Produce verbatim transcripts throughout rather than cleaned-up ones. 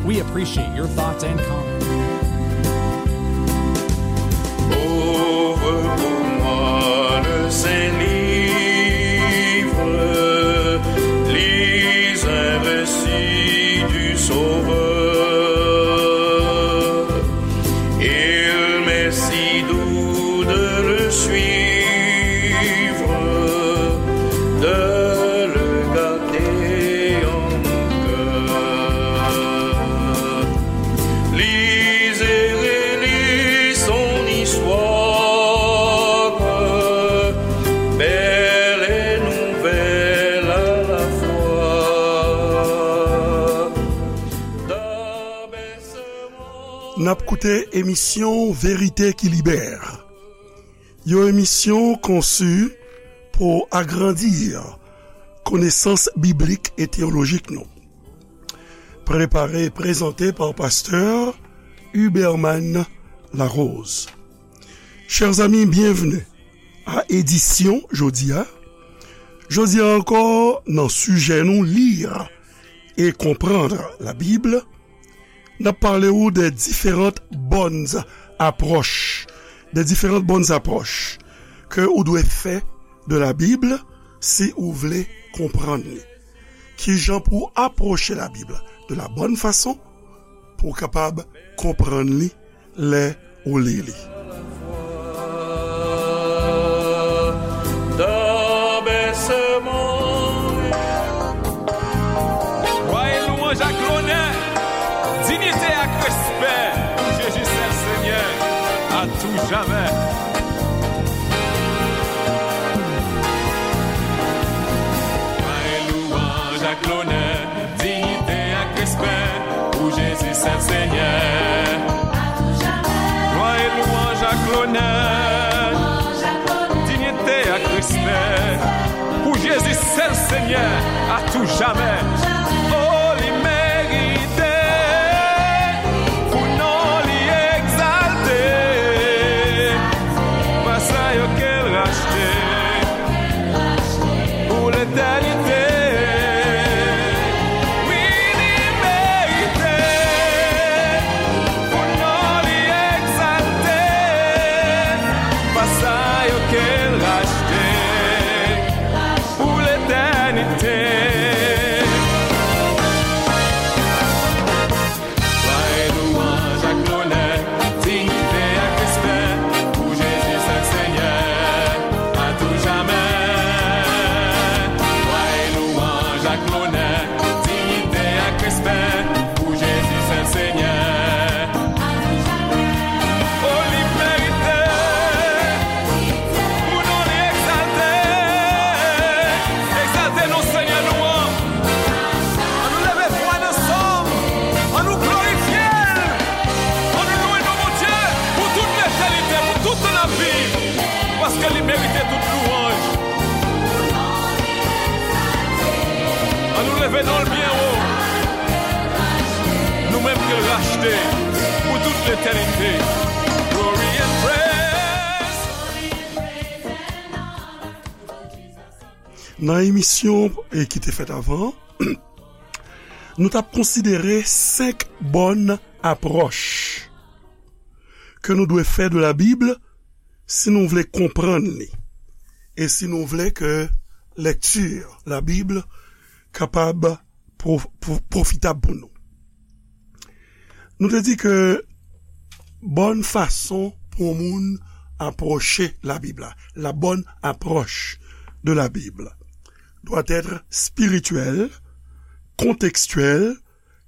We appreciate your thoughts and comments. Ouvre pour moi le saint livre, lis un récit du Sauveur. Il m'est si doux de le suivre, de le garder en mon cœur. Lisez et relisez son histoire, belle et nouvelle à la fois. N ap koute emisyon Verite ki Libè. Yon emisyon konsi pou agrandi konesans biblik e teyolojik nou. Prepare e prezante pa pastè Huberman Larose. Chers amis, bienvenue à édition jodi a. Jodi a ankò, nan sijè nou, lire et comprendre la Bible, n ap pale ou de diferant bòn apwòch, de diferant bòn apwòch ke ou dwe fè de la Bible si ou vle konprann li. Kijan pou apwoche la Bible de la bonne façon pou w kapab konprann li lè ou li li. Glwa e louwanj ak lonè, diyite ak respè pou Jezi sèl Senyè, a tou jamè. Glwa e louwanj ak lonè, diyite ak respè pou Jezi sèl Senyè. Glwa e louwanj ak lonè, diyite ak respè pou Jezi sèl Senyè, a tou jamè. O, li merite pou non li egzalte. Pa sa yo ke l rachte pou letènite. Wi, li merite pou non li egzalte. Pa sa yo ke l rachte pou letènite. Glwa e louwanj ak lonè, diyite ak respè pou Jezi sèl Senyè, a tou jamè. Glwa e louwanj ak lonè, diyite ak respè pou Jezi sèl Senyè. O, li merite pou non li egzalte. Egzalte non Senyè nou an. Ann nou leve vwa n ansanm. Ann nou glorifye l. Ann nou louwe non Bondye pou tout letènite, pou tout tan n ap viv. Paske li merite tout louwanj. Ann nou leve non l byen wo. Nou menm ke l rachte pou tout letènite. Glory and praise. Nan emisyon, e, ki te fèt avan, nou t ap konsidere senk bòn apwòch ke nou dwe fè de la Bible si nou vle konprann li e si nou vle ke lèkti la Bible kapab pwo-, pwo-, pwofitab pou nou. Nou te di ke bòn fason pou yon moun apwoche la Bib la, la bonne approche de la Bible, doit être spirituelle, contextuelle,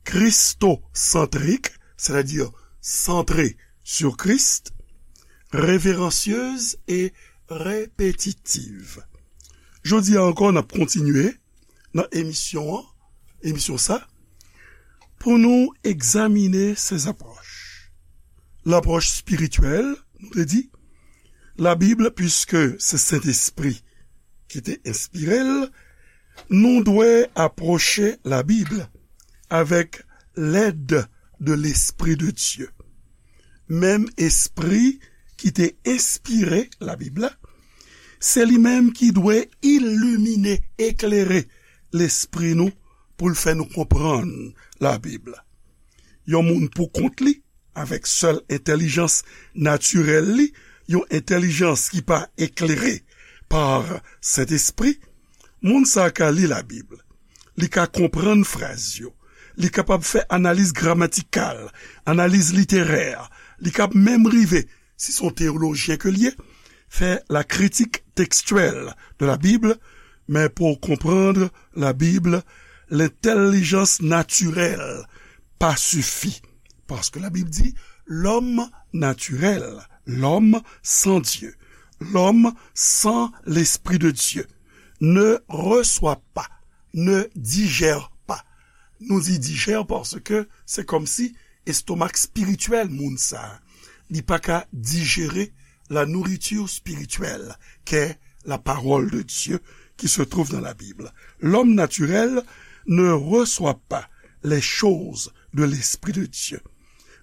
christocentrique, c'est-à-dire centrée sur Christ, révérencieuse et répétitive. Jodi a ankò, n ap kontinye nan emisyon an, emisyon sa, pou nou egzamine se apwòch. Lapwòch espirityèl, nou te di, la Bib, piske se Sentespri ki te enspire l, nou dwe apwoche la Bib avèk lèd de Lespri de Dye. Menm Espri ki te enspire la Bib la, se li menm ki dwe ilimine, eklere lespri nou pou l fè nou konprann la Bib la. yon moun pou kont li, avèk sèl entèlijans natirèl li, yon entèlijans ki pa eklere pa Sentespri, moun sa a ka li Labib, li ka konprann fraz yo, li kapab fè analiz gramatikal, analiz literè, li kab menm rive, si se yon teyolojyen ke l ye, fè la critique textuelle de la Bible, men pou w konprann Labib, lentèlijans natirèl pa sifi. Paske Labib di, l'homme naturel, l'homme sans Dieu, l'homme sans l'Esprit de Dieu ne reçoit pas, ne digère pas. Nou di dijè paske se kòmsi estomak espirityèl moun sa a, li pa ka dijere la nourriture spirituelle qu'est la parole de Dieu qui se trouve dans la Bible. L'homme naturel ne reçoit pas les choses de l'Esprit de Dieu.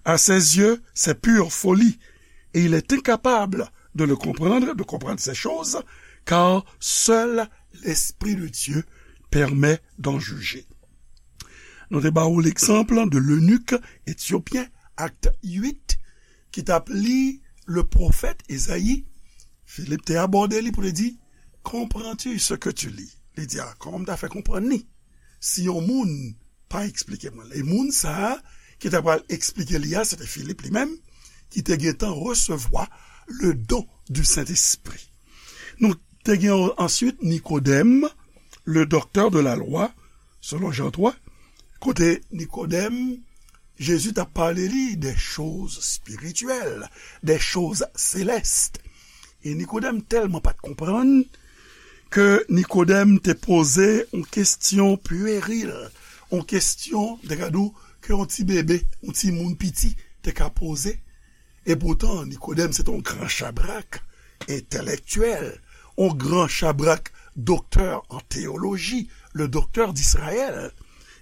À ses yeux, c'est pure folie, et il est incapable de le comprendre, de comprendre ces choses, car seul l'Esprit de Dieu permet d'en juger. Nou te ba ou l'exemple de l'eunuque éthiopien, Acte huit, ki t ap li le pwofèt Ezayi. Filip te abòde li pou li di, comprends-tu ce que tu lis? Li di, a, kòman m ta fè konprann li? Si yon moun pa eksplike mwen l. E moun sa a ki ta pral eksplike li a, se te Filip li menm, ki te gentan resevwa le don du Saint-Esprit. Nou te gen answit Nikodèm, le docteur de la loi, selon Jan twa, kote Nikodèm, Jezi t ap pale li de choz espirityèl, de choz selès. E Nikodèm tèlman pa t konprann ke Nikodèm te poze yon kesyon pweril, yon kesyon, te ka di w, ke yon ti bebe, yon timoun piti te ka poze. E poutan, Nikodèm se te yon gran chabrak entèlektyèl, yon gran chabrak doktè an teyoloji, le docteur d'Israël.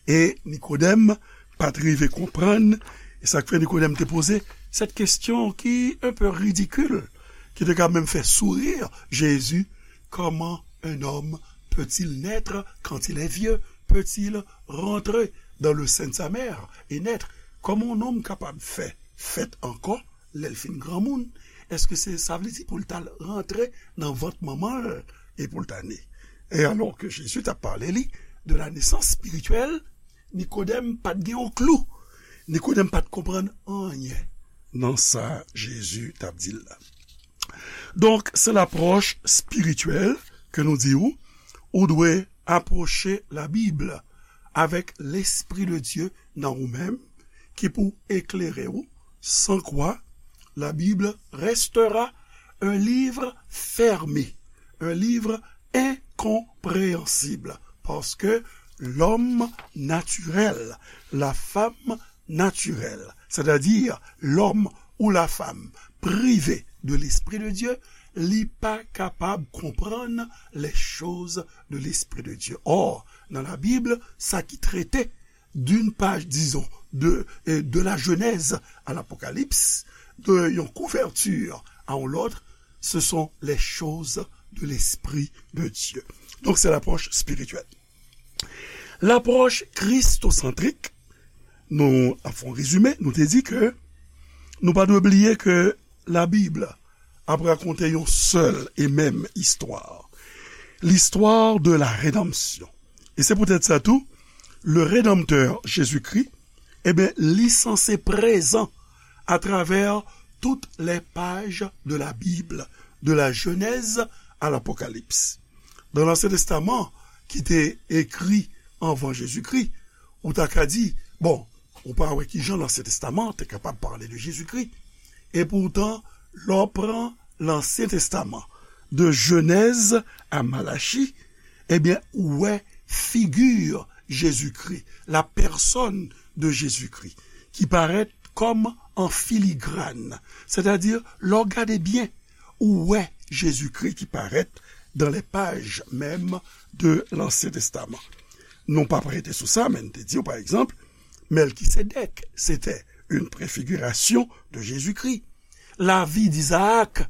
E Nikodèm pa t rive konprann, e sa k fè Nikodèm te poze cette question qui est un peu ridicule, ki te ka menm fè sourire Jésus, comment un homme peut-il naître quand il est vieux? Peut-il rentrer dans le sein de sa mère et naître? Kòman yon nonm kapab fè fèt ankò lè l fin granmoun? Èske se, sa vle di pou l t al rantre nan vant manman l e pou l ta ne? E alò ke Jezi t ap pale li de la nesans espirityèl, Nikodèm pa t gen yon klou. Nikodèm pa t konprann anyen nan sa Jezi t ap di l la. Donk, se lapwòch espirityèl ke nou di ou, ou dwe apwoche Labib avèk Lespri de Dye nan ou menm, ki pou eklere ou, sans quoi la Bible restera un livre fermé, un livre incompréhensible, parce que l'homme naturel, la femme naturelle, c'est-à-dire l'homme ou la femme privé de l'Esprit de Dieu, li pa kapab konprann les choses de l'Esprit de Dieu. Or, dans la Bible, sa ki trete d'une page, disons, de, euh, de la Genèse à l'Apocalypse, de yon kouverti a yon lòt, ce sont les choses de l'Esprit de Dieu. Donc, c'est l'approche spirituelle. Lapwòch kristosantrik, nou ap fè yon rezime, nou te di ke nou pa dwe bliye ke Labib ap rakonte yon sèl e menm istwa. L'histoire de la rédemption. E se poutèt sa tou, le Rédempteur Jésus-Christ, e ben, li sanse prezan atravè tout les pages de la Bible, de la Genèse à l'Apocalypse. Dans l'Ancien Testament, ki te ekri anvan Jezikri, ou ta ka di, bon, ou pa wè kijan Lansyen Testaman te kapab pale de Jezikri. E poutan, lè w pran Lansyen Testaman, de Jenèz a Malachi, ebyen, ou wè figi Jezikri, la personne de Jésus-Christ, ki parèt kòm an filigran. Sètadi, lè w gade byen, ou wè Jezikri ki parèt dans les pages mêmes de l'Ancien Testament. Nou p ap rete sou sa, men n te di w, pa egzanp, Melkisedèk, c'était une préfiguration de Jésus-Christ. Lavi d'Izaak,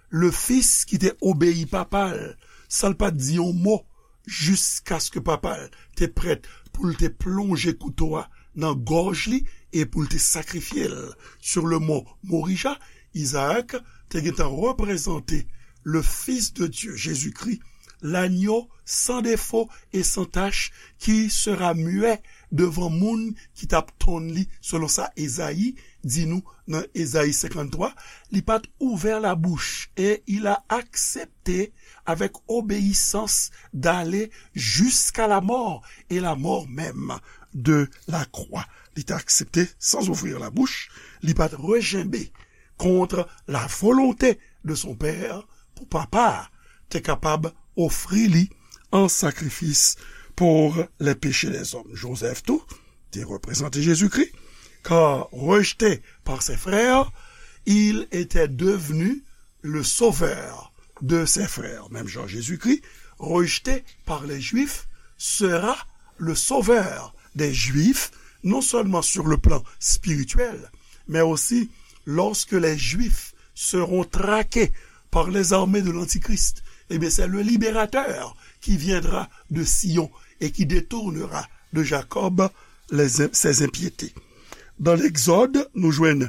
le fils ki te obeyi papa l, san l pa t di yon mo, jiskaske papa l te prèt pou l te plonje kouto a nan gòj li e pou l te sakrifye l. Sur le mont Morija, Izaak te gentan reprezante le Fils de Dieu, Jésus-Christ, l'agneau sans défaut et sans tache, qui sera muet devan moun ki t ap tann li, selon sa Ezayi di nou nan Ezayi senkanntwa, li pa t ouvè labouch, et il a accepté avec obéissance d'aller jusqu'à la mort, et la mort même de la croix. Li te aksepte sans ouvrir la bouche, li pa t rejenbe kont la volonte de son pè pou papa a te kapab ofri li an sakrifis pour les péchés des hommes. Joseph tou te reprezante Jezikri, car rejeté par ses frères, il était devenu le sauveur de ses frères. Même Jean Jésus-Christ, rejeté par les Juifs, sera le sauveur des Juifs, non seulement sur le plan spirituel, mais aussi lorsque les Juifs seront traqués par les armées de l'Antichrist, eh bien, c'est le libérateur qui viendra de Sion et qui détournera de Jacob les, ses impiétés. Dans l'Exode, nou jwenn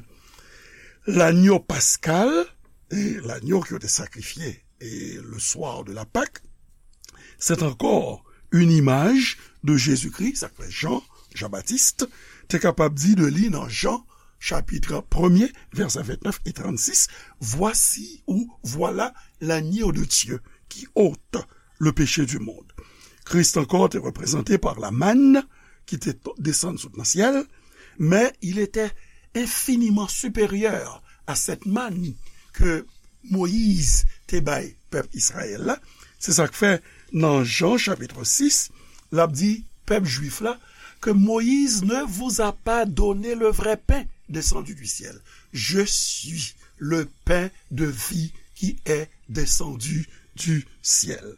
l'agneau pascal, et l'agneau ki yo te sakrifye et le soir de la Pâque, c'est encore une image de Jésus-Christ, sa k fè Jean, Jean-Baptiste, te kapab di de li nan Jean, chapitre premier, verset vingt-neuf et trente-six, voici ou voilà l'agneau de Dieu qui ôte le péché du monde. Christ encore était représenté par la manne qui était desann sot nan syèl, mais il était infiniment supérieur à cette manne que Moyiz te bay pèp Izrayèl la. Se sa k fè nan Jan chapit sis, l ap di pèp jwif la ke Moïse ne vous a pas donné le vrai pain descendu du ciel. Je suis le pain de vie qui est descendu du ciel.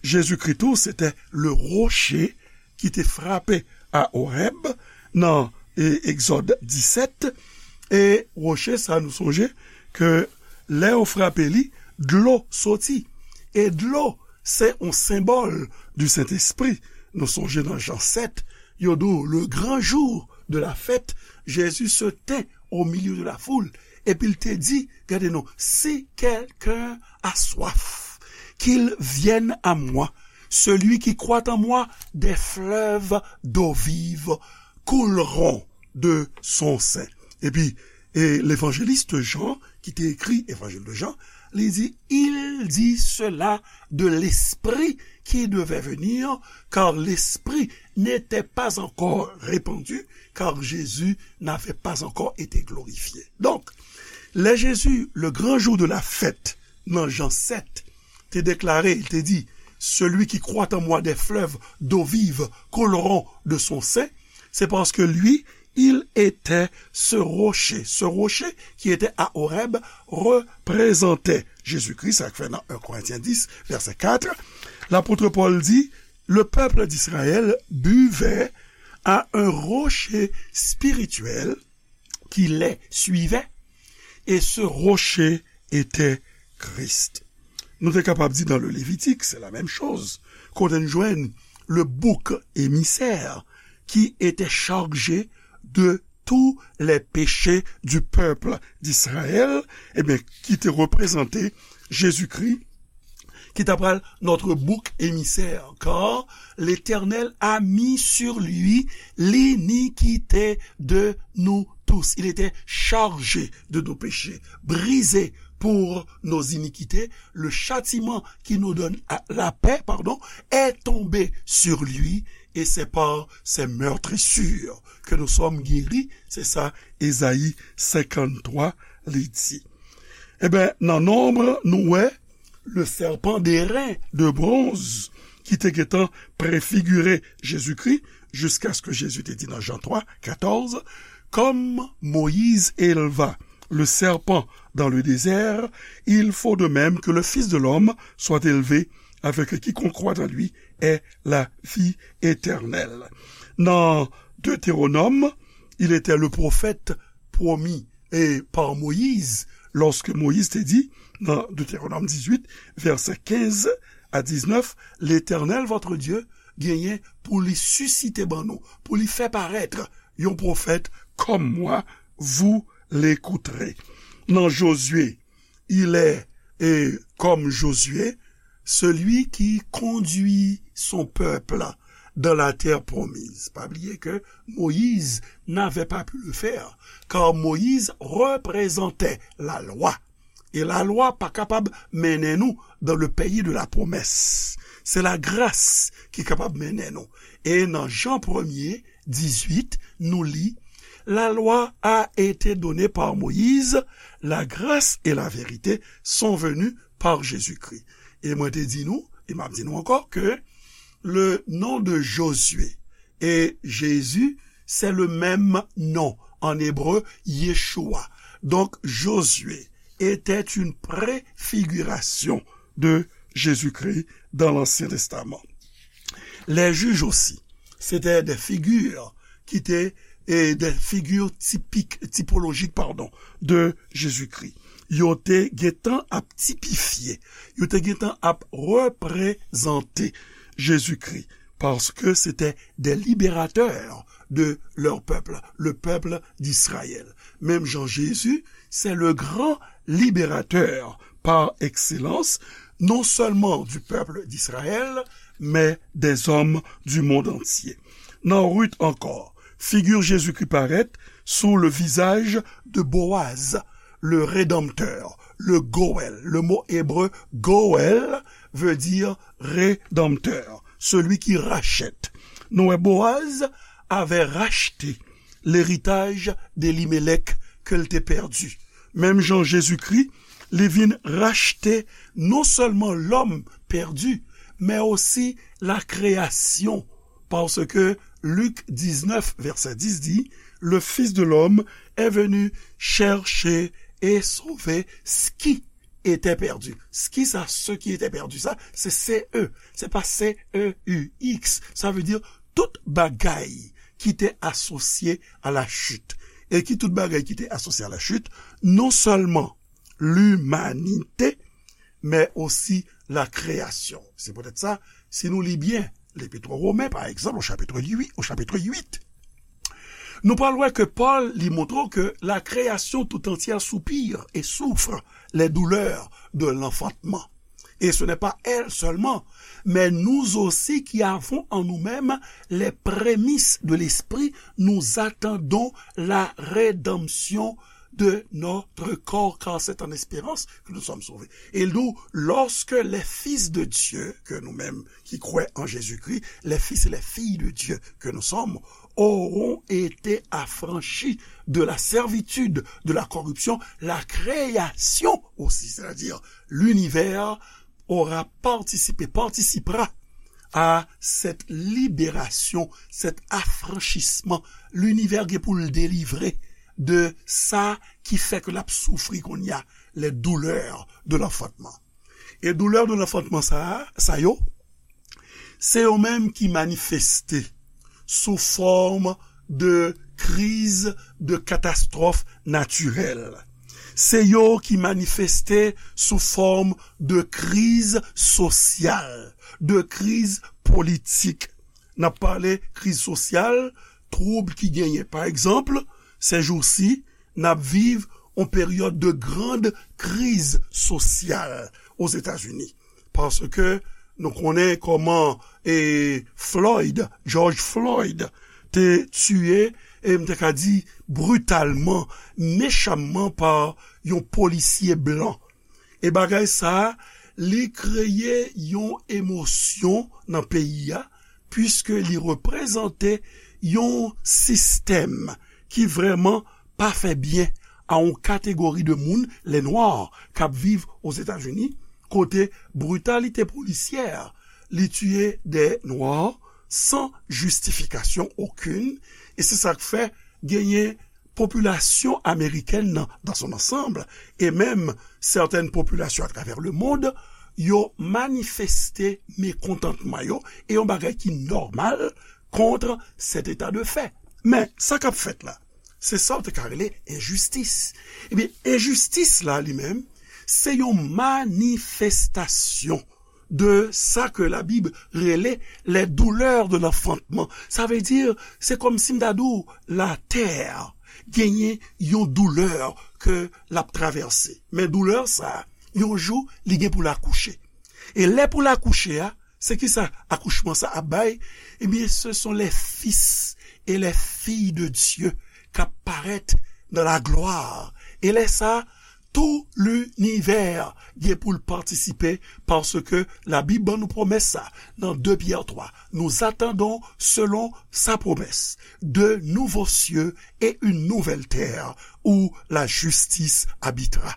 Jezikri tou, se te le roche ki te frape a Oreb nan e, Egzòd disèt. E woche sa, nou sonje ke lè yo frape li, dlo soti. E dlo, se yon senbòl di Sentespri. Nou sonje nan Jan sèt, yo di w, le grand jour de la fête, Jésus se tint au milieu de la foule. Epi l te di, gade non, si quelqu'un a soif, qu'il vienne à moi. Celui qui croit en moi, des fleuves d'eau vive couleront de son sein. Epi, e levanjelis Jan, ki te ekri Evanjil de Jan, li di, il dit cela de l'Esprit qui devait venir, car l'Esprit n'était pas encore répandu, car Jésus n'avait pas encore été glorifié. Donk, lè Jezi, le grand jour de la fête, nan Jan sèt, te deklare, li te di, celui qui croit en moi, des fleuves d'eau vive couleront de son sein, c'est parce que lui, il était ce rocher. Ce rocher qui était à Horeb représentait Jésus-Christ, sa k fè nan un Corinthiens dix, verset quatre, l'apôtre Paul dit, le peuple d'Israël buvait à un rocher spirituel qui les suivait, et ce rocher était Christ. Nou te kapab di dans le Lévitique, c'est la même chose. Kote n jwenn le bouc émissaire qui était chargé de tous les péchés du peuple d'Israël, ebyen, ki te reprezante Jezikri, ki ta pral notre bouc émissaire, car l'Éternel a mis sur lui l'iniquité de nous tous. Il était chargé de nos péchés, brisé pour nos iniquités. Le châtiment qui nous donne la paix, pardon, est tombé sur lui, et c'est par ses meurtrissures que nous sommes guéris. Se sa Ezayi senkanntwa li di. Ebyen, nan Nonb, nou wè le serpent d'airain de bronze ki te gentan prefigire Jezikri, jiskaske Jezi te di nan Jan twa katòz, comme Moïse éleva le serpent dans le désert, il faut de même que le Fils de l'homme soit élevé, afin que quiconque croit en lui ait la vie éternelle. Nan Deutéronome, il était le prophète promis et par Moïse, lorsque Moïse te di, nan Deutéronome dix-huit, verset quinze à dix-neuf, Letènèl, votre Dieu, genyen pou li sisite ban nou, pou li fè parèt un prophète comme moi, vous l'écouterez. Nan Josué, il est, et comme Josué, celui qui conduit son peuple dans la terre promise. Pa bliye ke Moïse n'avait pas pu le faire, car Moïse représentait la loi. E lalwa pa kapab mennen nou dans le pays de la promesse. Se lagras ki kapab mennen nou. E nan Jan premye, dizuit, nou li, la loi a été donnée par Moïse, la grâce et la vérité sont venues par Jésus-Christ. E mwen te di nou, e m ap di nou ankò, ke le nom de Josué et Jésus, c'est le même nom en hébreu, Yeshua. Donc, Josué était une préfiguration de Jésus-Christ dans l'Ancien Testament. Les juges aussi, c'était des figures qui étaient, et des figures typiques, typologiques, pardon, de Jésus-Christ. Yo te gentan ap tipifye, yo te gentan ap reprezante Jezikri, paske se te des libérateurs de leur peuple, le peuple d'Israël. Menm jan Jezi, se le gran libérateur par excellence, non seulement du peuple d'Israël, mais des hommes du monde entier. Nan Ruth ankò, figi Jezikri parèt sou le visage de Boaz, le rédempteur, le Goël. Le mot hébreu Goël veut dire rédempteur, celui qui rachète. Nou wè Boaz avait racheté l'héritage d'Elimelech ke l te pèdi. Menm jan Jezikri, li vin rachte non sèlman lòm pèdi, men osi la création, parce que Luc dix-neuf, verset dix dit, le Fils de l'homme est venu chercher et sauver ce qui était perdu. Ce qui ça, ce qui était perdu, ça, c'est C E, c'est pas C E U X. Ça veut dire tout bagay ki te asosye a la chit. E ki tout bagay ki te asosye a la chit, non sèlman limanite, men osi la kreyasyon. Se poutèt sa, si nou li byen Lepit o Women, pa egzanp, o chapit uit, o chapit uit, nou pral wè ke Pòl li montre ke la création tout entière soupire et souffre les douleurs de l'enfantement. Et ce n'est pas elle seulement, mais nous aussi qui avons en nous-mêmes les prémices de l'Esprit, nous attendons la rédemption de notre corps, car c'est en espérance que nous sommes sauvés. Et nous, lorsque les fils de Dieu, que nous-mêmes qui croyons en Jésus-Christ, les fils et les filles de Dieu que nous sommes, auront été affranchis de la servitude de la corruption, la création aussi, c'est-à-dire l'univers aura participé, participera à cette libération, cet affranchissement. Linivè gen pou l delivre de sa ki fè ke l ap soufri kounye a, les douleurs de l'enfantement. E doulè de l'enfantement sa, sa yo, se yo menm ki manifeste sou fòm de kriz, de katastwòf natirèl. Se yo ki manifeste sou fòm de kriz sosyal, de kriz politik. N ap pale kriz sosyal, twoub ki genyen. Pa egzanp, sèjousi, n ap viv yon peryòd de grande kriz sosyal Ozetazini. Paske nou konnen kòman, e, Floyd, George Floyd, te tiye, e m te ka di britalman, mechamman pa yon polisye blan. E bagay sa a, li kreye yon emosyon nan peyi a, piske li reprezante yon sistèm ki vrèman pa fè byen a yon kategori de moun, les Noirs, k ap viv Ozetazini, kote britalite polisyè, li tiye de Nwa san jistifikasyon okenn, e se sa k fè genyen popilasyon amerikèn nan, dans son ensemble, e menm sètèn popilasyon atravè lemonn, yo manifeste mekontantman yo, e yon bagay ki nòmal kont cet état de fait. Men, sa k ap fèt la, se sa w te ka rele enjistis. Ebyen, enjistis la, li menm, se yon manifestasyon de sa ke Labib rele les douleurs de l'enfantement. Sa vle di, se kòmsi m ta di w, latè genyen yon doulè ke l ap travèse. Men doulè sa, yon jou, li gen pou l akouche. E lè pou l akouche a, se ki sa akouchman sa ap bay? Ebyen, ce sont les fils et les filles de Dieu k ap parèt dans la gloire. E lè sa, tout linivè gen pou l patisipe, paske Labib ban nou pwomès sa nan de Pyè twa. Nous attendons, selon sa promesse, de nouveaux cieux et une nouvelle terre où la justice habitera.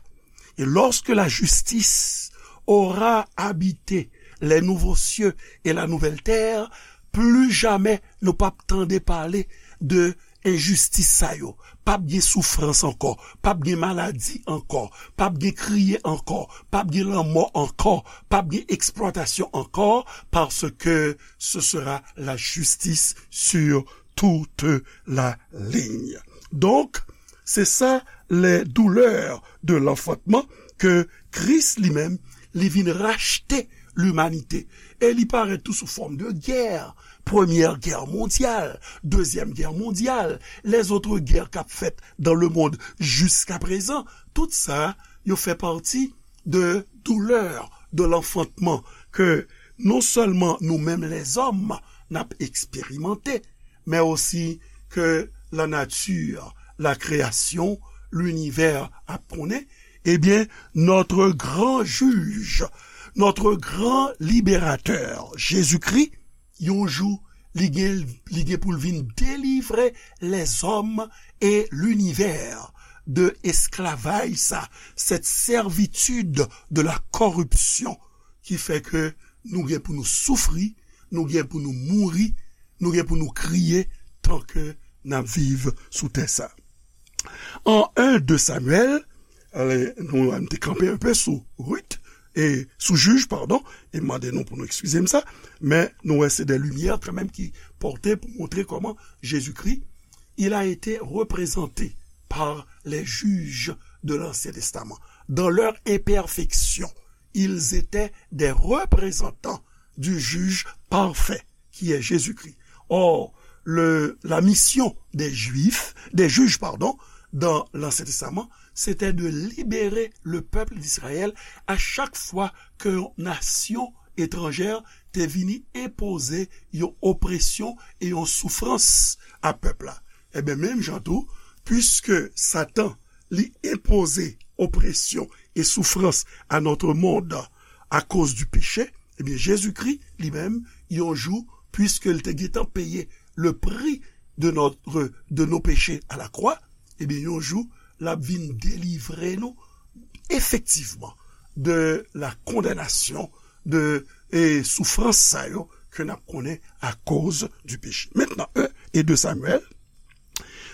Et lorsque la justice aura habité les nouveaux cieux et la nouvelle terre, plus jamais nou p ap tande pale de enjistis sa yo. P ap gen soufrans ankò, p ap gen maladi ankò, p ap gen kriye ankò, p ap gen lanmò ankò, p ap gen eksplwatasyon ankò, paske ce sera la justice sur toute la ligne. Donk, se sa, les douleurs de l'enfantement, ke Kris li menm, li vin rachte limanite. E li parèt tou sou fòm de gè. Premyè gè mondyal, dezyèm gè mondyal, les autres guerres k ap fèt dans le monde jusqu'à présent, tout sa, yo fè pati de doulè de l'enfantement ke non sèlman nou menm lèzòm n ap eksperimante, men osi ke la nature, la création, l'univers ap konnen, ebyen, notre grand juge, notre grand libérateur, Jésus-Christ, yon jou, li gen, li gen pou l vin delivre lèzòm e linivè de esklavaj sa, cette servitude de la corruption ki fè ke nou gen pou nou soufri, nou gen pou nou mouri, nou gen pou nou kriye tan ke n ap viv sou tè sa. An en de Samyèl, ale, nou, nou te kanpe enpe sou Ruth, e sou jij, padon, e mande nou pou nou eskize m sa, men nou wè se de limyè kanmenm ki pòte pou montre kòman Jezikri, il a été représenté par les juges de l'Ancien Testament. Dans leur imperfection, ils étaient des représentants du juge parfait, qui est Jésus-Christ. Or, le, la mission des Juifs, des juges, pardon, dans l'Ancien Testament, c'était de libérer le peuple d'Israël à chaque fois que yon nasyon etranjè te vini enpoze yon opresyon e yon soufrans a pèp la. Ebyen, menm jan tou, puiske Satan, li enpoze opresyon e soufrans a notre monde à cause du péché, ebyen, Jezikri, li menm, yon jou, puiske l te gentan peye le prix de notre, de nos péchés à la croix, ebyen, yon jou, l ap vin delivre nou, efektivman, de la condamnation, de, e soufrans sa yo ke n ap konnen à cause du péché. Maintenant, un et deux Samuel,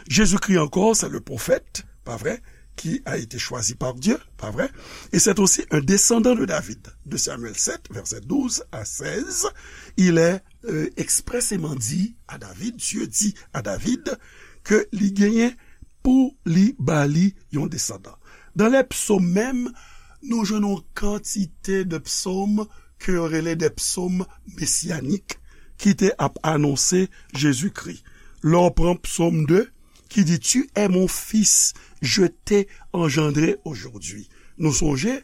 Jésus-Christ encore, c'est le prophète, pas vrai, qui a été choisi par Dieu, pas vrai, et c'est aussi un descendant de David. Deux Samuel sept, verset douze à seize, il est, euh, expressément dit à David, Dieu dit à David, ke li genyen pou li ba li yon desandan. Dan lè psòm menm, nou jwenn yon kantite de psòm ke yo rele de psòm mesyanik ki te ap anonse Jezikri. Lè w pran psòm de, ki di, Tu es mon fils, je t'ai engendré aujourd'hui. Nou sonje,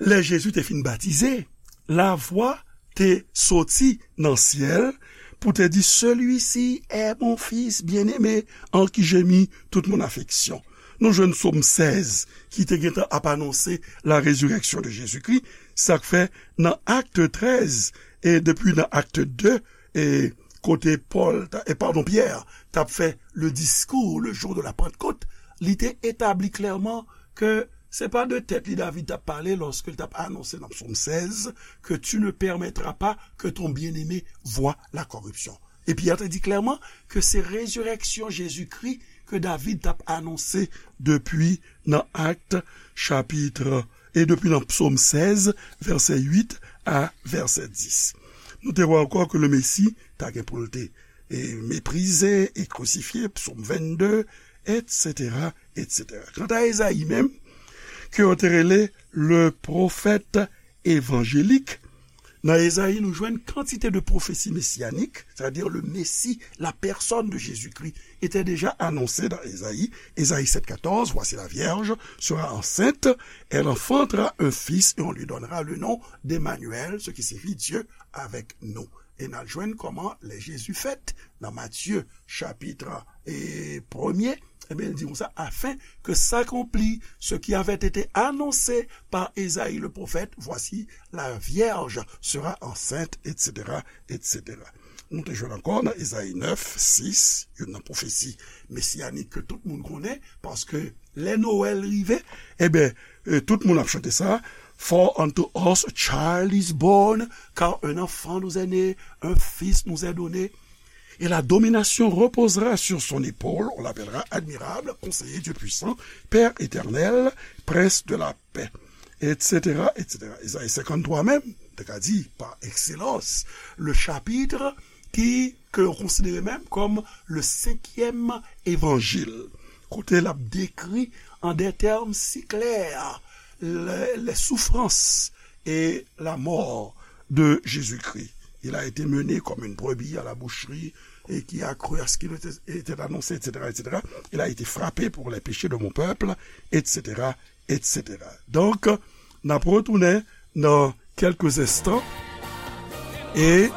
lè Jezi te fin batize, lavwa te soti nan syèl pou te di, Celui-ci est mon fils bien-aimé, en qui j'ai mis toute mon affection. Nou jwenn psòm sèz ki te gentan ap anonse la résurrection de Jésus-Christ, sa k fè nan Acte treize, e depi nan Acte deux, e kote Pòl, ta- e padon, Pyè t ap fè le discours le jour de la Pentecôte, li te etabli klèman ke se pa de tèt li David t ap pale lòske l t ap anonse nan psòm sèz que tu ne permettras pas que ton bien-aimé voie la corruption. E Pyè te di klèman ke se rezirèksyon Jezikri ke David t ap anonse depi nan Acte chapitre, e depi nan psòm sèz, vèsè uit a vèsè dis. Nou te wè ankò ke le Mesi ta gen pou l te, e, meprize e krisifye, psòm vennde, etsetera, etsetera. Kanta Ezayi menm, ke yo te rele le prophète évangélique, Nan Ezayi, nou jwenn kantite de pwofesi mesiyanik, c'est-à-dire le Messie, la personne de Jésus-Christ, était déjà annoncée dans Ésaïe. Ésaïe sept quatorze, voici la vierge sera enceinte, elle enfantera un fils et on lui donnera le nom d'Emmanuel, ce qui signifie Dieu avec nous. E n al jwenn kòman lè Jezi fèt nan Matye chapit e premye, ebyen, li di konsa, afin que s'accomplit ce qui avait été annoncé par Ésaïe le prophète, voici, la vierge sera enceinte, et cetera, et cetera. Nou te jwenn ankò nan Ezayi nèf, sis, youn nan pwofesi mesiyanik ke tout moun konnen, paske lè Nwèl rive, ebyen, e, tout moun ap chante sa, For unto us a child is born, car un enfant nous est né, un fils nous est donné. Et la domination reposera sur son épaule, on l'appellera admirable, conseiller, Dieu puissant, Père éternel, prince de la paix, et cetera, et cetera. Ezayi senkanntwa menm, te ka di, par excellence, le chapitre ki, ke yo konsidere menm kòm le cinquième évangile, kote l ap dekri an des termes si clairs les, les souffrances et la mort de Jésus-Christ. Il a été mené comme une brebis à la boucherie, et qui a cru à ce qui lui était, était annoncé, et cetera, et cetera. Il a été frappé pour les péchés de mon peuple, et cetera, et cetera. Donk, n ap retounen nan kèlke enstan e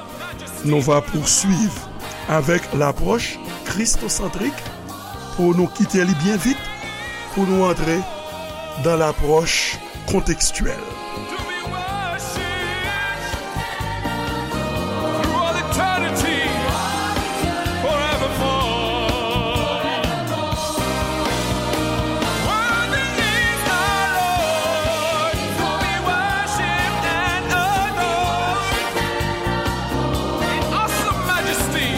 nou va poursuivre avec l'approche christocentrique pou nou kite li byen vit, pou nou antre dans l'approche contextuelle. To be worshipped through all eternity, forevermore. Worthy is our Lord to be worshipped and adored in awesome majesty.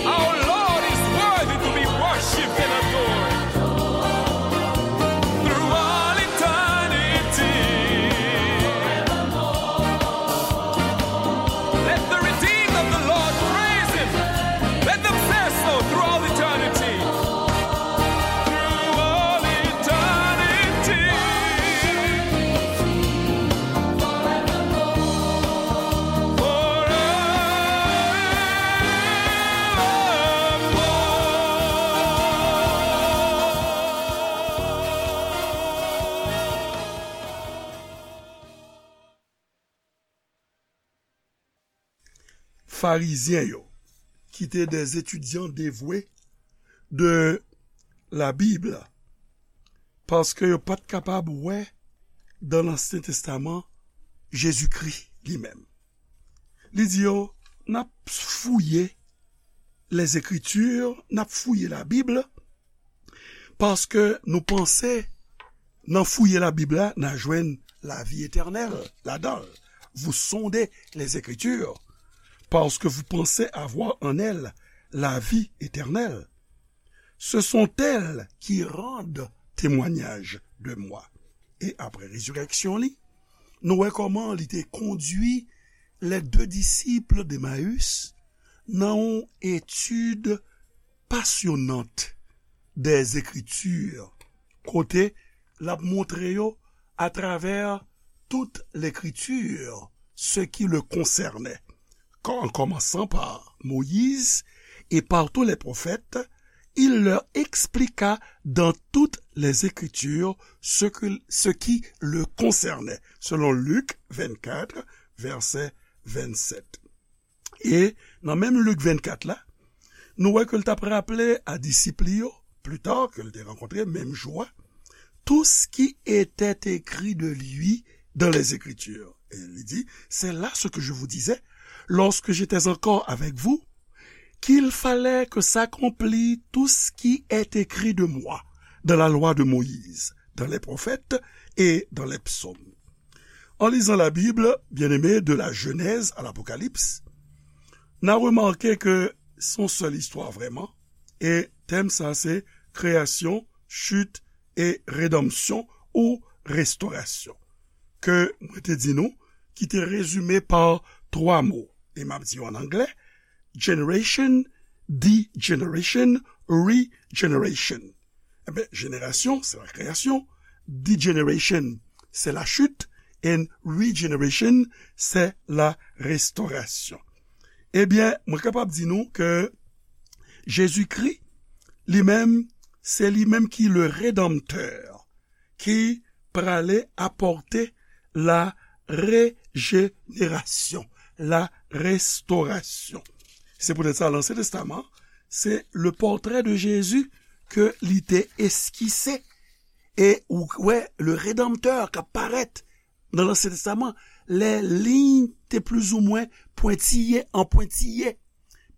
Our Lord is worthy to be worshipped and adored through all eternity. Let the redeemed of the Lord praise him. Let them say so through all eternity. Through all eternity. Farizyen yo, ki te des étudiants dévoués de la Bible, paske yo pa t kapab wè dans l'Ancien Testament Jezikri li menm. Li di yo, n ap fouye les Écritures, n ap fouye Labib, paske nou panse nan fouye Labib la, n a jwenn lavi etènèl ladan l. Vous sondez les Écritures, parce que vous pensez avoir en elles la vie éternelle. Ce sont elles qui rendent témoignage de moi. E apre rezirèksyon li, nou wè kòman li te kondui les deux disciples d'Emmaüs nan yon etid pasyonant des Écritures, kote l ap montre yo atravè tout Lekriti ce qui le concernait, en commençant par Moïse et par tous les prophètes, il leur expliqua dans toutes les Écritures ce que, ce qui le concernait, selon Luc vingt-quatre, verset vingt-sept. E nan menm Lik vennkat la, nou wè ke l t ap raple a disip li yo, pli ta, ke l te rankontre menm jou a, tout ce qui était écrit de lui dans les Écritures. Et il dit, c'est là ce que je vous disais lorsque j'étais encore avec vous, qu'il fallait que s'accomplit tout ce qui est écrit de moi dans la loi de Moïse, dans les prophètes et dans les psaumes. En lisant la Bible, bien-aimés, de la Genèse à l'Apocalypse, n a remake ke se yon sèl istwa vrèman, e tèm sa se kreyasyon, chit e redanmsyon ou restorasyon, ke mwen te di nou, ki te rezime pa twa mo, e m ap di yo an anglè, generation, degeneration, regeneration. Ebyen, jenerasyon, se la kreyasyon, degeneration, se la chute, and regeneration, se la restorasyon. Ebyen, mwen kapab di nou ke Jezikri, li menm, se li menm ki le Redanmtè, ki prale apòte la rejenerasyon, la restorasyon. Se poutèt sa, Lansyen Testaman, se le pòtrè de Jezi ke li te eskise. E ou wè, le Redanmtè k ap parèt nan Lansyen Testaman, lè liy te plizoumwen pwentiye an pwentiye.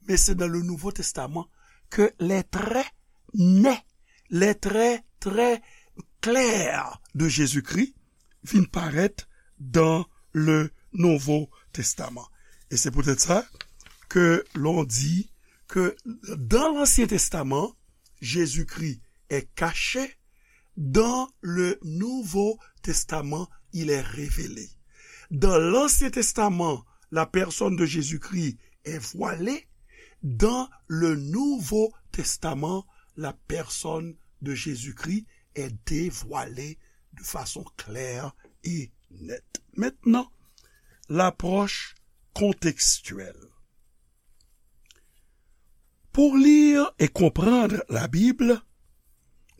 Men se dans le Nouveau Testament que les traits nets, les traits très clairs de Jésus-Christ vin parèt dans le Nouveau Testament. E se poutèt sa ke l'on di ke dans l'Ancien Testament, Jésus-Christ est caché, dans le Nouveau Testament, il est révélé. Dans l'Ancien Testament, la personne de Jésus-Christ est voilée. Dans le Nouveau Testament, la personne de Jésus-Christ est dévoilée de façon claire et nette. Maintenant, l'approche contextuelle. Pou li e konprann Labib,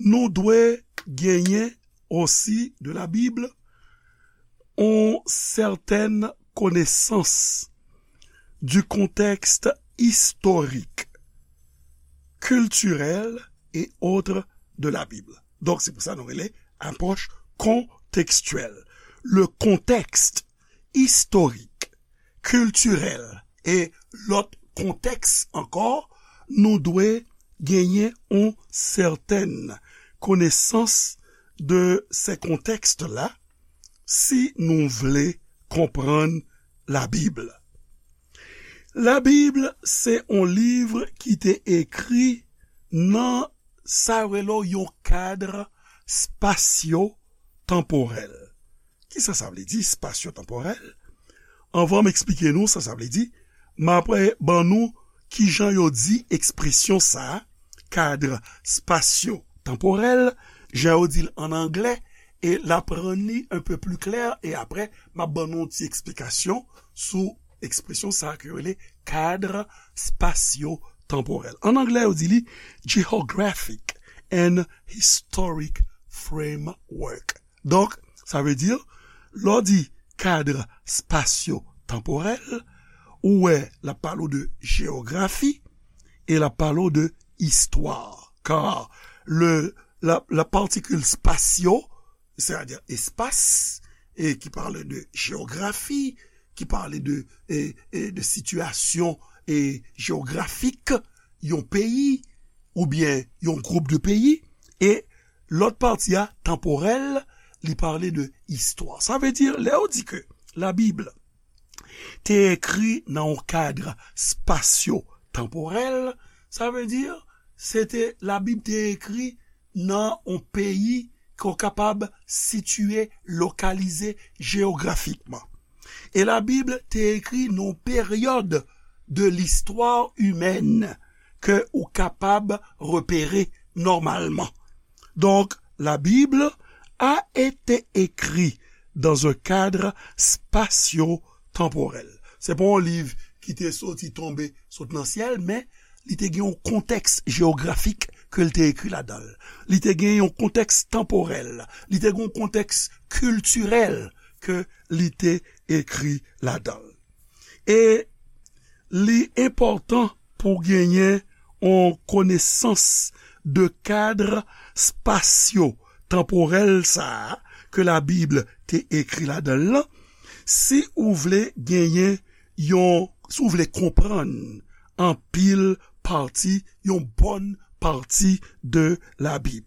nou dwe genyen osi de Labib yon sètèn konesans du contexte historique, culturel et autres de la Bible. Donk, se pou sa nou rele apwòch kontekstyèl. Le contexte historique, culturel e lòt kontèks ankò, nou dwe genyen yon sètèn konesans de se kontèks la si nou vle konprann Labib. Labib se yon liv ki te ekri nan sa yo rele yon kad spasyo-tanporèl. Kisa sa vle di, spasyo-tanporèl? Anvan m eksplike nou sa sa vle di, m ap ban nou kijan yo di ekspresyon sa a, kad spasyo-tanporèl, jan yo di l ann anglè, e l ap rann li un peu plus clair, e apre, m ap ban nou yon ti eksplikasyon sou ekspresyon sa a ke yo rele kad spasyo-tanporèl. Ann anglè, yo di li geographic and historic framework. Donk, sa vle di, lè w di kad spasyo-tanporèl, ou wè, l ap pale w de jeyografi e l ap pale w de istwa. Kar le, la, la particule spatio, c'est-à-dire espace, et qui parle de géographie, qui parle de, et, et de situation et géographique, yon peyi, oubyen yon gwoup de peyi, e lòt pati a, tanporèl, li pale de istwa. Sa vle di, lè yo di ke Labib te ekri nan yon kad spasyo-tanporèl, sa vle di, se te Labib te ekri nan yon peyi ke w kapab sitiye, lokalize jeyografikman. E Labib te ekri nan yon peryòd de listwa imèn ke ou kapab repere nòmalman. Donc, la Bible a été écrite dans un cadre spatio-temporel. Se pa yon liv ki te soti tonbe sot nan syèl, men li te gen yon kontèks jeyografik ke l te ekri ladan l. Li te gen yon kontèks tanporèl. Li te gen yon kontèks kiltirèl ke li te ekri ladan l. E li enpòtan pou genyen yon konesans de kad spasyo-tanporèl sa a ke Labib te ekri ladan l lan, si ou vle genyen yon, si w vle konprann anpil pati, yon bòn pati de Labib.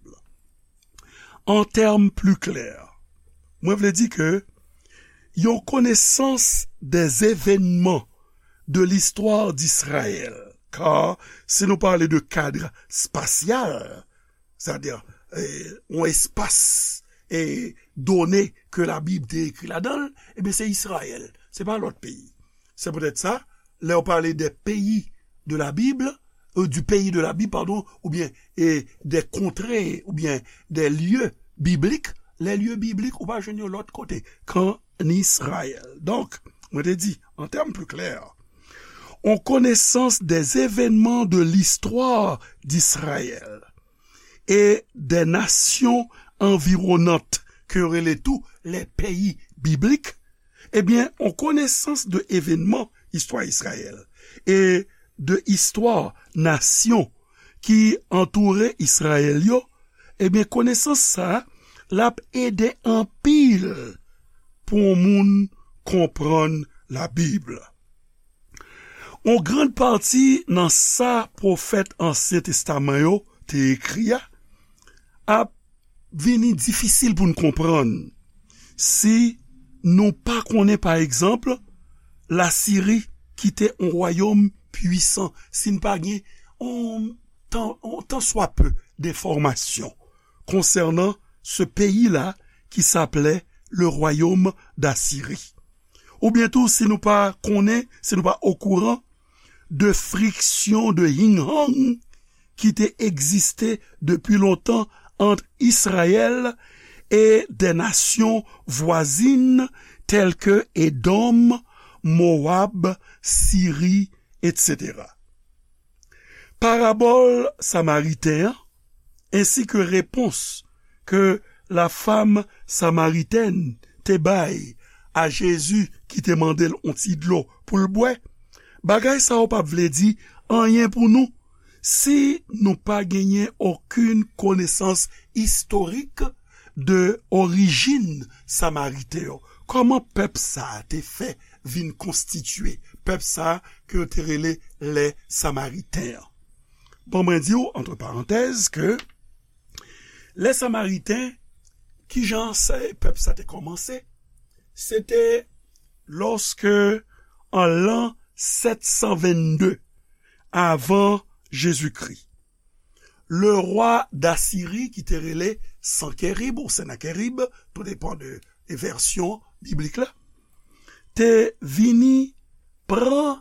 En termes plus clairs, mwen vle di ke yon konesans des événements de l'histoire d'Israël, kar si nou pale de kad spasyal, sètadi, eh, yon espas, eh, done ke Labib te ekri ladan l, ebyen, se Izrayèl, se pa lòt peyi. Se poutèt sa, lè yo pale de peyi de Labib, euh, du pays de la Bible, pardon, oubyen, e, des contrées, oubyen des lieux bibliques, les lieux bibliques, ou pa jwenn yo lòt kote, k'an Izrayèl. Donk, mwen te di, en termes plus clairs, on connaissance des événements de l'histoire d'Israël et des nations environnantes, ke yo rele tou les pays bibliques, ebyen, on konesans de evenman istwa Izrayèl e de istwa nasyon ki antoure Izrayèl yo, ebyen, konesans sa a, l ap ede anpil pou yon moun konprann Labib. On grann pati nan sa pwofèt Ansyen Testaman yo te ekri a ap vini difisil pou n konprann si nou pa konnen, pa egzanp, Lasiri ki te yon wayòm pwisan, si n pa gen yon tan, yon tan swa pe denfòmasyon konsènan se peyi la ki s'appelait le royaume d'Assyrie. Oubyen tou, si nou pa konnen, si nou pa okouran de friksyon, de hing-hang ki te egziste depi lontan ant Izrayèl e de nasyon vwazin tèl ke Edòm, Mowab, Siri, etsetera. Parabòl Samariten an, ensi ke repons ke la femme samaritaine te bay a Jezi ki te mande l yon ti dlo pou l bwè, bagay sa yo p ap vle di anyen pou nou si nou pa genyen okenn konesans istorik de orijin Samariten yo. Kòman pèp sa a te fè vin konstitye, pèp sa a ke yo te rele lè Samariten an? Bon, mwen di w, antre parantèz, ke lè Samariten, kijan sa, pèp sa te kòmanse? Se te lòske, an lan sèt san vennde avan Jezikri, le rwa Dasiri, ki te rele Sankerib ou Sennakerib, tou depan de, de vèsyon biblik la, te vini pran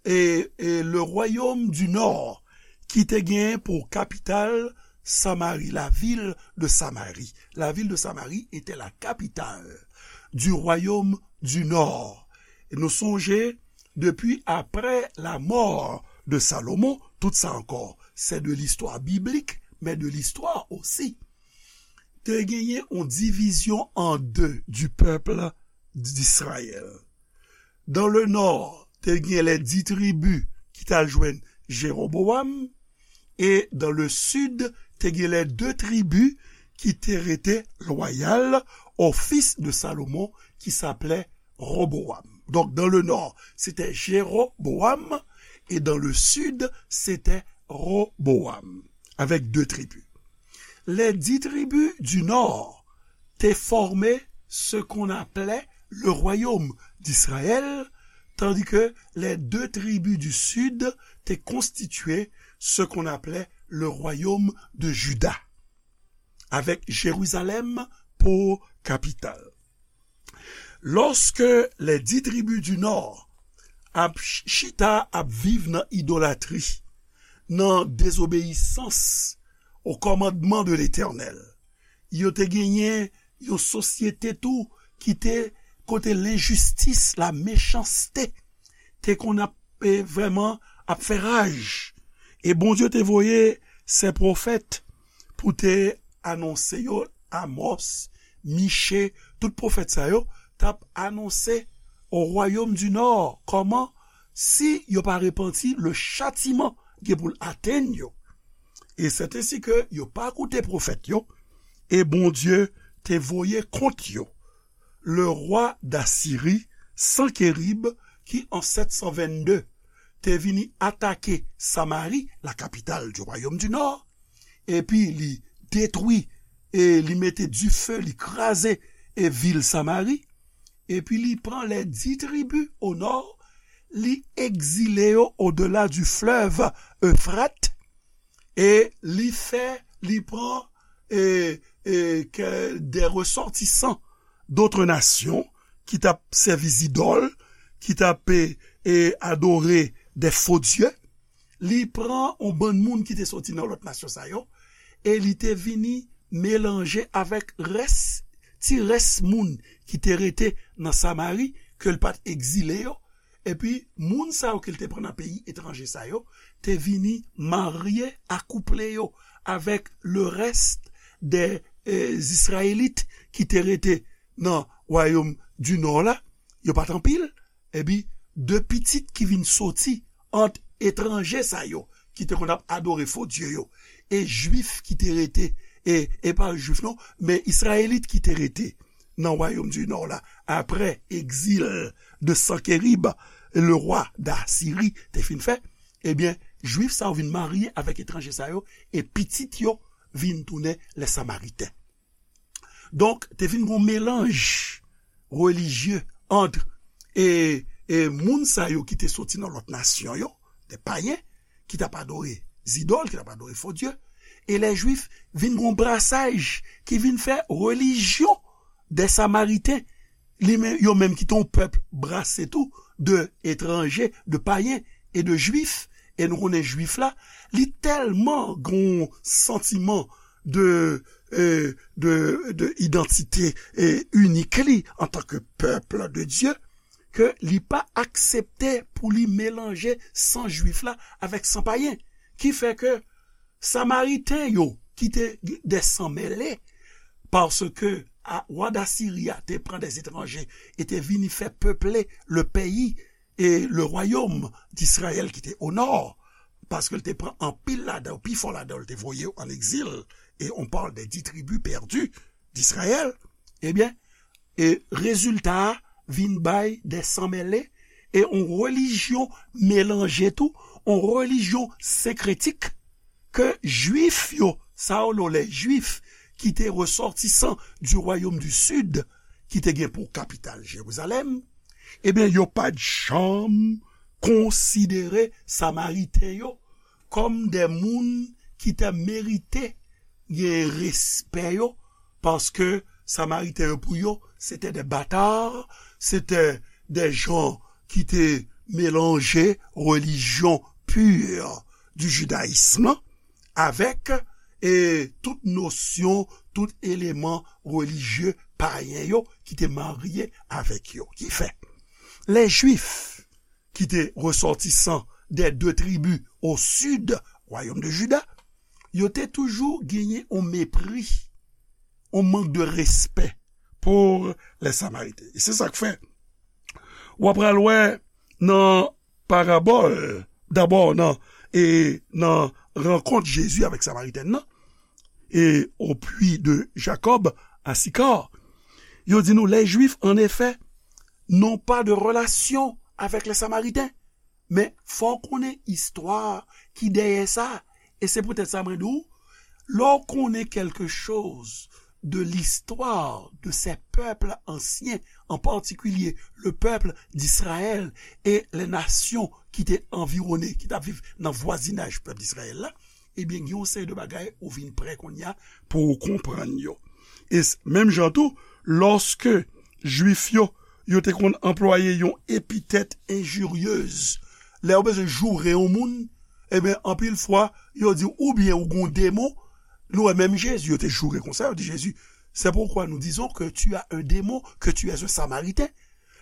e, e le royaume du Nord, ki te gen pou kapital Samari, la ville de Samarie. La ville de Samarie était la capitale du royaume du Nord. E nou sonje, depi apre la mort de Salomon, tout sa ankò, c'est de l'histoire biblique, mais de l'histoire aussi. Te genyen yon divizyon an de du peuple d'Israël. Dans le nord, te gen les dix tribus ki t al jwenn Jeroboam, e dans le sud, te gen les deux tribus ki te rete loyal au fils de Salomon, ki s'appelait Roboam. Donc, dans le nord, c'était Jéroboam, et dans le sud, c'était Roboam, avec deux tribus. Les dix tribus du nord te fòme ce qu'on appelait le royaume d'Israël, tandis que les deux tribus du sud te konstitye ce qu'on appelait le royaume de Juda, avec Jérusalem pour capitale. Lòske les dix tribus du nord ap ch-, chita ap viv nan idolatri, nan dezobeyisans o kòmandman de Letènèl, yo te genyen yon sosyete tou ki te kote lenjistis, la mechanste, te konn ap, e, vrèman ap fè raj. E Bondye te voye sen pwofèt pou te anonse yo, Amòs, Miche, tout pwofèt sa yo t ap anonse o royaume du nord kòman, si yo pa repanti, le châtiment gen pou l atenn yo. E c'est ainsi que yo pa koute pwofèt yo, e Bondye te voye kont yo le rwa Dasiri, Sankerib, ki an sèt san vennde te vini atake Samari, la capitale du royaume du nord, epi li detwi, e li mete dife, li kraze, e vil Samari, epi li pran les dix tribus au nord, li egzile yo au-delà du fleuve Euphrates, e li fè, li pran, e, e, ke des ressortissants d'autres nations ki t ap sèvi zidòl, ki t ap, e, e, adore des faux dieux, li pran yon bann moun ki te soti nan lòt nasyon sa yo, e li te vini melanje avèk rès, ti rès moun ki te rete nan Samari, ke l pa t egzile yo, epi moun sa yo ke l te pran nan peyi etranje sa yo, te vini marye, akouple yo avèk le rès de, eh, Izrayelit ki te rete nan wayòm di Nò la, yo pa t anpil, epi de pitit ki vin soti ant etranje sa yo, ki te konn ap adore fo dye yo, e Jwif ki te rete, e, e pa Jwif non, men Izrayelit ki te rete nan wayòm di Nò la, apre egzil de Sankerib, le rwa Dasiri, te fin fè, ebyen, Jwif sa yo vin marye avèk etranje sa yo, e pitit yo vin tounen lè Samariten. Donk, te vin gon melanj relijye ant, e, e moun sa yo ki te soti nan lòt nasyon yo, de payen, ki t ap adore zidòl, ki t ap adore fo dye, e lè Jwif vin gon brasaj ki vin fè relijyon de Samariten, li menm, yo menm ki te yon pèp brase tou de etranje, de payen e de Jwif, e nou konnen Jwif la, li tèlman gon santiman de, eh, de, de idantite, eh, inik li antanke pèp de Dye, ke li pa aksepte pou li melanje san Jwif la avèk san payen. Ki fè ke Samariten yo, ki te de san mele, paske a, wa Dasiri a te pran de etranje e te vini fè peple le peyi e le wayòm d'Izrayèl ki te o nò, paske l te pran anpil ladan yo, pifò ladan yo, l te voye yo an egzil, e on parle des dix tribus perdues d'Israël, ebyen, e rezilta a vin bay de san mele, e on relijyon melanje tou, on relijyon senkretik ke Jwif yo, sa yo rele les Juifs, ki te resòtisan du royaume du Sud, ki te gen pou kapital Jerizalèm, ebyen, yo pa t janm konsidere Samariten yo kòm de moun ki te merite gen respè yo, paske Samariten yo pou yo, se te de bata, se te de jan ki te melanje relijyon pur du judaïsme avèk, e, tout nosyon, tout eleman relijye payen yo ki te marye avèk yo. Ki fè, les Juifs ki te resòtisan des deux tribus au sud, wayòm de Juda, yo te toujou genyen on mepri, on mank de respè pou les Samariten. E se sa k fè, w ap pral wè nan parabòl, dabò nan, e nan rankont Jezi avèk Samaritèn nan, et au puits de Jacob à Sychar. Yo di nou, les Juifs, en effet, n'ont pas de relation avec les Samaritains. Men fò w konnen istwa ki dèyè sa. E se poutèt sa mwen di w, lè w konnen quelque chose de l'histoire de ces peuples anciens, en particulier le peuple d'Israël et les nations ki te anviwone, ki t ap viv nan vwazinaj pèp Izrayèl la, ebyen, gen yon seri de bagay ou vin prè kounye a pou w konprann yo. E s-, menm jan tou, lòske Jwif yo, yo te konn anplwaye yon epitèt enjiryez, lè yo bezwen joure yon moun, ebyen, anpil fwa, yo di w oubyen ou gon demon, nou wè menm Jezi, yo te joure konsa, yo di Jezi, c'est pourquoi nous disons que tu as un démon, que tu es un Samaritain.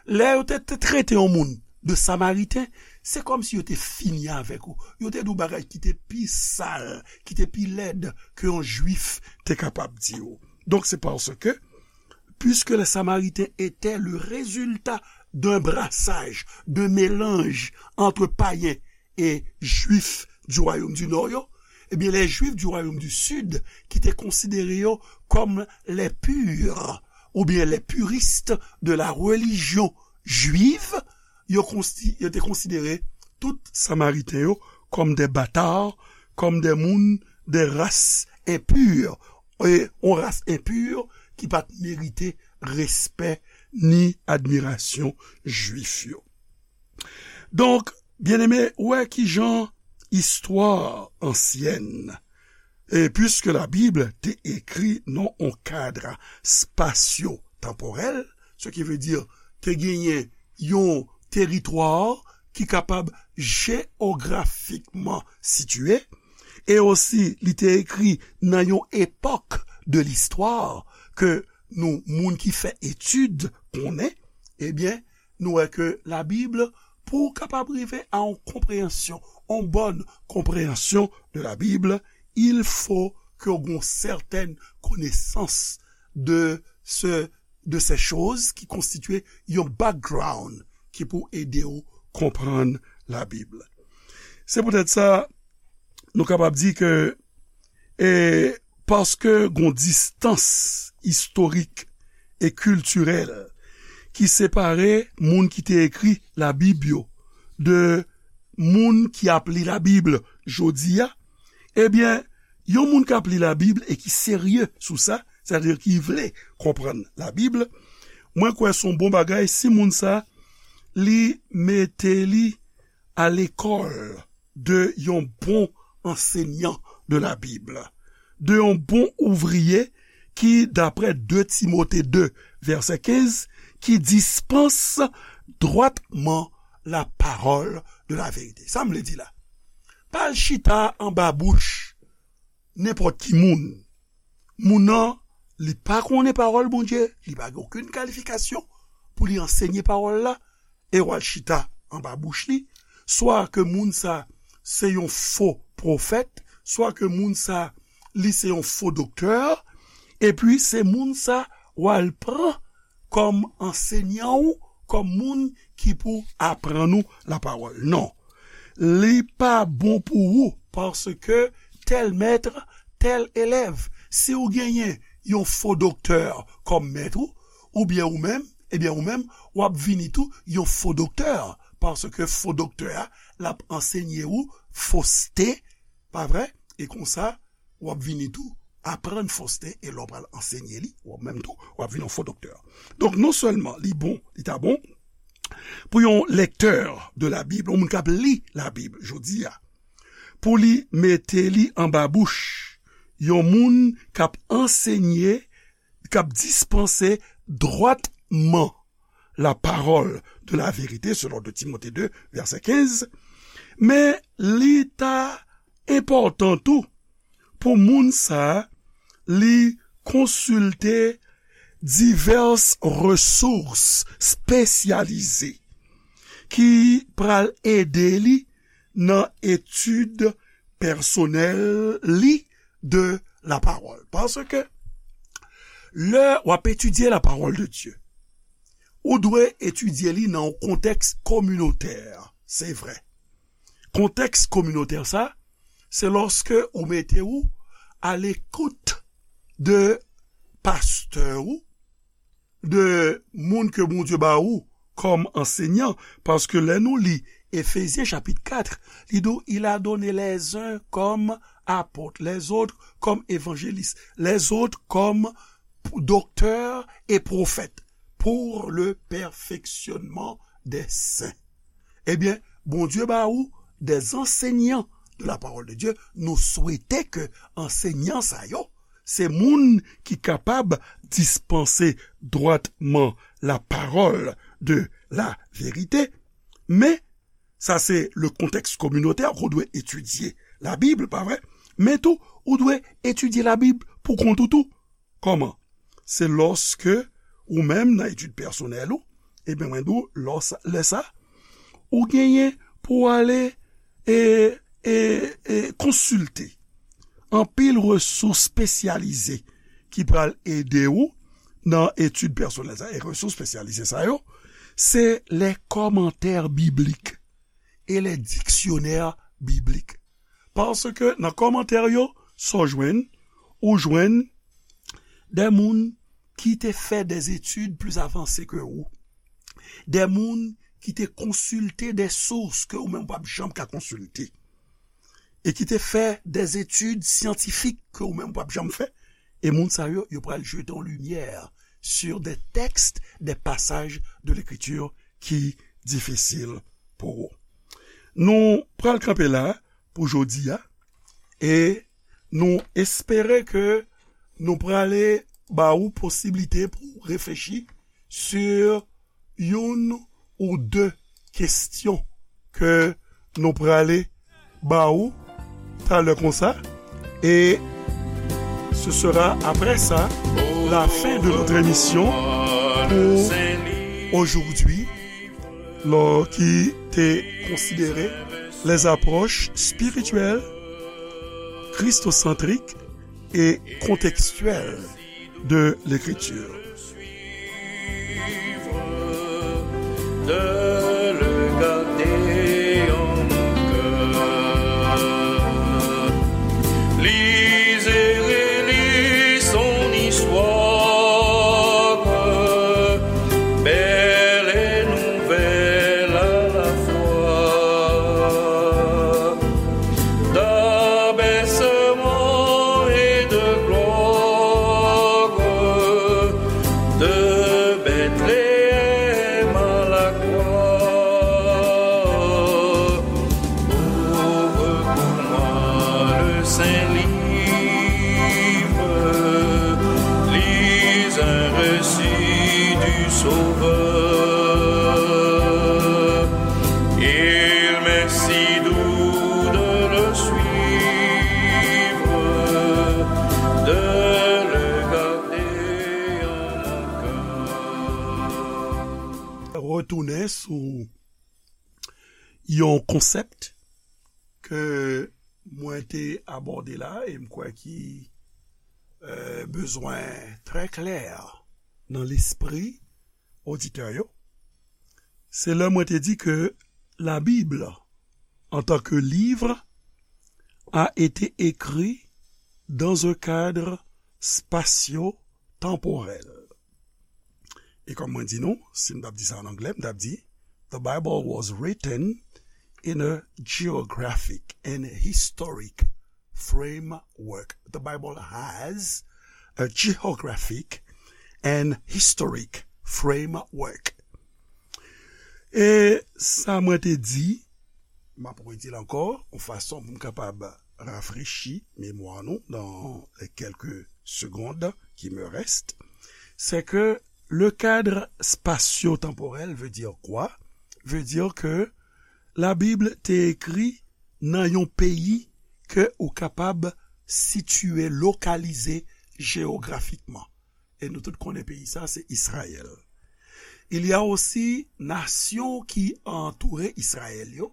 Lè yo te, te trete yon moun de Samariten, se kòmsi yo te fini avèk ou. Yo te di w bagay ki te pi sal, ki te pi lèd ke yon Jwif te kapab di w. Donc, c'est parce que, puisque les Samaritains étaient le résultat d'un brassage, d'un mélange entre païens e Jwif du Royaume du Nord yo, ebyen, les Juifs du Royaume du Sud, ki te konsidere yo kòm les purs, oubyen les puristes de la religion juive, yo konsi-, yo te konsidere tout Samariten yo kòm des bâtards, kòm des moun, des races impures, e yon ras enpi ki pa t merite respè ni admirasyon Jwif yo. Donk, byeneme, ou wè kijan istwa ansyèn, e puiske la Bib te ekri nan yon kad spasyo-tanporèl, ce qui veut dire te genyen yon teritwa ki kapab jeyografikman sitiye, e osi li te ekri nan yon epòk de listwa ke nou, moun ki fè etid, konnen, ebyen, nou wè ke Labib, pou w kapab rive a yon konpreyansyon, yon bòn konpreyansyon de Labib, il faut que w gen yon sètèn konesans de se, de ces choses ki konstitye yon background ki pou ede w konprann Labib. Se poutèt sa, nou kapab di ke, e, paske gon distans istorik e kiltirèl ki separe moun ki te ekri Labib yo de moun ki ap li Labib jodi a, ebyen, yon moun k ap li Labib e ki serye sou sa, sètadi ki vle konprann Labib, mwen kwè se yon bon bagay si moun sa, li mete li a lekòl de yon bon ansenyan de Labib, de yon bon ouvriye ki, daprè de Timote de, vèsè kenz, ki dispanse dwatman la parole de la vérité. Sa m vle di la. Pa al chita anba bouch nenpòt ki moun. Moun nan, li pa konnen pawòl Bondye, li pa gen okenn kalifikasyon pou li ansenye pawòl la, e w al chita anba bouch li, swa ke moun sa se yon fo pwofèt, swa ke moun sa li se yon fo doktè, epi se moun sa w al pran kòm ansenyan ou, kòm moun ki pou aprann ou lapawòl. Non. Li pa bon pou ou, paske tèl mèt, tèl elèv. Si w genyen yon fo doktè kòm mèt ou, oubyen ou menm, ebyen ou menm, w ap vini tou yon fo doktè, paske fo doktè a, l ap ansenye ou foste, pa vre? E konsa, w ap vini tou aprann foste, e lè w pral ansenye li, ou menm tou, w ap vin yon fo doktè. Donk, non sèlman li bon, li ta bon pou yon lèktè de Labib, yon moun k ap li Labib jodi a, pou li mete li anba bouch yon moun k ap ansenye, k ap dispanse dwatman la parole de la vérité, selon de Timote de, vèsè kenz, men li ta enpòtan tou pou moun sa a, li konsilte divès resous espesyalize ki pral ede li nan etid pèsonèl li de la parole. Paske lè w ap etidye la parole de Dieu, ou dwe etidye li nan yon kontèks kominotè, se vre. Kontèks kominotè sa, se lòske ou mete ou a lekout de pastè ou, de moun ke Bondye ba ou kòm ansenyan, paske lè nou li Efezyen chapit kat, li di w, il a donné les uns comme apôtres, les autres comme évangélistes, les autres comme docteurs et prophètes, pour le perfectionnement des saints. Ebyen, Bondye ba ou des enseignants de la parole de Dieu. Nou swete ke ansenyan sa yo, se moun ki kapab dispanse dwatman la parole de la vérité. Men, sa se le kontèks kominotè ke w dwe etidye Labib, pa vre? Men tou, ou dwe etidye Labib pou kont ou tou. Kòman? Se lòske ou menm nan etid pèsonèl ou, ebyen, mwen di w, lè sa, ou genyen pou w ale e, e, e konsilte anpil resous espesyalize ki pral ede ou nan etid pèsonèl sa. E resous espesyalize sa yo, se les commentaires bibliques et les dictionnaires bibliques. Paske nan kòmantè yo, sa w jwenn, ou jwenn de moun ki te fè des études plus avancées que ou, de moun ki te konsilte de sous ke ou menm w p ap janm ka konsilte, e ki te fè des études scientifiques ke ou menm w p ap janm fè, e moun sa yo, yo pral jete yon limyè sur des textes, des passages de l'écriture ki difisil pou ou. Nou pral kanpe la pou jodi a, e nou espere ke nou prale ba ou posiblite pou reflechi sur youn ou de kesyon ke nou prale ba ou talè konsa. Et ce sera après ça la fin de notre émission pour aujourd'hui, lò ki te konsidere les approches spirituelles, christocentriques et contextuelles de l'écriture. De le garder en mon cœur. Lisez et relisez son histoire, belle et nouvelle à la fois. D'abaissement et de gloire, de Bethléem à la croix. Ouvre pour moi le saint livre, lis un récit du Sauveur. Il m'est si doux de le suivre, de le garder en mon cœur. Retounen sou yon konsèp ke mwen te abòde la, e m kwè ki, euh, bezwen trè klè nan lespri oditè yo. Se lè mwen te di ke la Bible, en tant que livre, a été écrit dans un cadre spatio-temporel. E kòm mwen di nou, si m t ap di sa an anglè, m t ap di, The Bible was written in a geographic and historic framework. The Bible has a geographic and historic framework. E sa mwen te di, m ap redi l ankò, yon fason pou m kapab rafrechi memwa nou dans les quelques secondes qui me restent, c'est que le cadre spatio-temporel veut dire quoi? Veut dire que la Bible te ekri nan yon peyi ke ou kapab sitiye, lokalize jeyografikman. E nou tout konnen peyi sa, se Izrayèl. Il y a aussi nasyon ki antoure Izrayèl yo,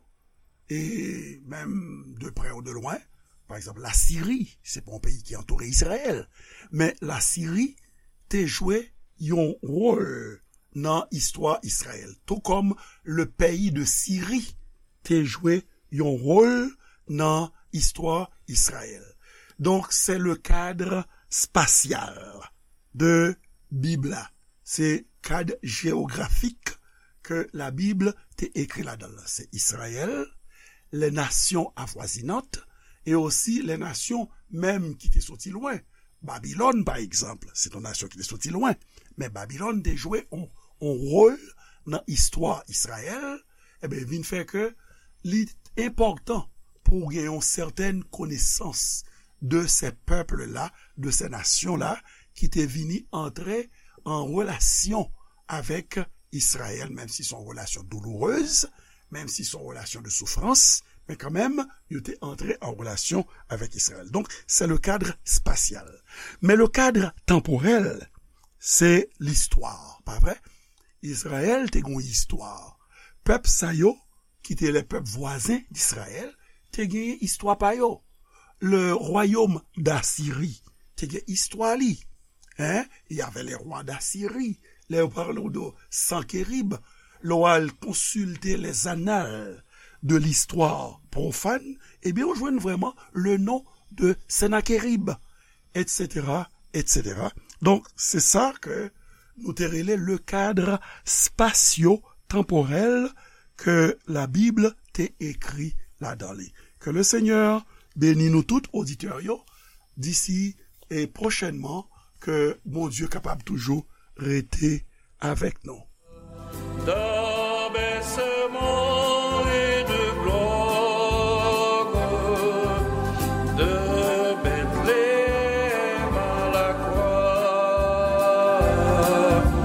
e menm de près ou de loin. Pa egzanp, Lasiri, se pa yon peyi ki antoure Izrayèl, men Lasiri te jwe yon wòl nan istwa Izrayèl, tout comme le pays de Syrie te jwe yon wòl nan istwa Izrayèl. Donk, c'est le cadre spatial de Bib la. Se kad jewografik ke la Bib te ekri ladan l lan. Se Izrayèl, les nations avoisinantes, et aussi les nations menm ki te soti lwen. Babilòn, pa egzanp, se yon nasyon ki te soti lwen. Men Babilòn te jwe yon, yon wòl nan istwa Izrayèl, ebyen, vin fè ke li enpòtan pou w gen yon sètèn konesans de ces peuples-là, de ces nations-là, ki te vini antre an relasyon avèk Izrayèl, menm si se yon relasyon doulourez, menm si se yon relasyon de soufrans, men kanmenm, yo te antre an relasyon avèk Izrayèl. Donk, se le kad spasyal. Men le kad tanporèl, se listwa, pa vre? Izrayèl te gen yon istwa. Pèp sa yo, ki te lè pèp vwazen d'Izrayèl, te genyen istwa pa yo. Le royaume d'Assyrie te gen istwa li. Hein? Il y avait les rois d'Assyrie. Lè yo pale w de Sankerib, lè w al konsilte les annales de l'histoire profane, ebyen, ou jwenn vrèman le nom de Sennacherib, et cetera, et cetera. Donk, se sa ke nou te rele le cadre spatio-temporel ke la Bib te ekri ladan li. Ke le Senyè beni nou tout, oditè yo, disi e pwochènman, ke Bondye kapab toujou rete avèk nou. Dans bercement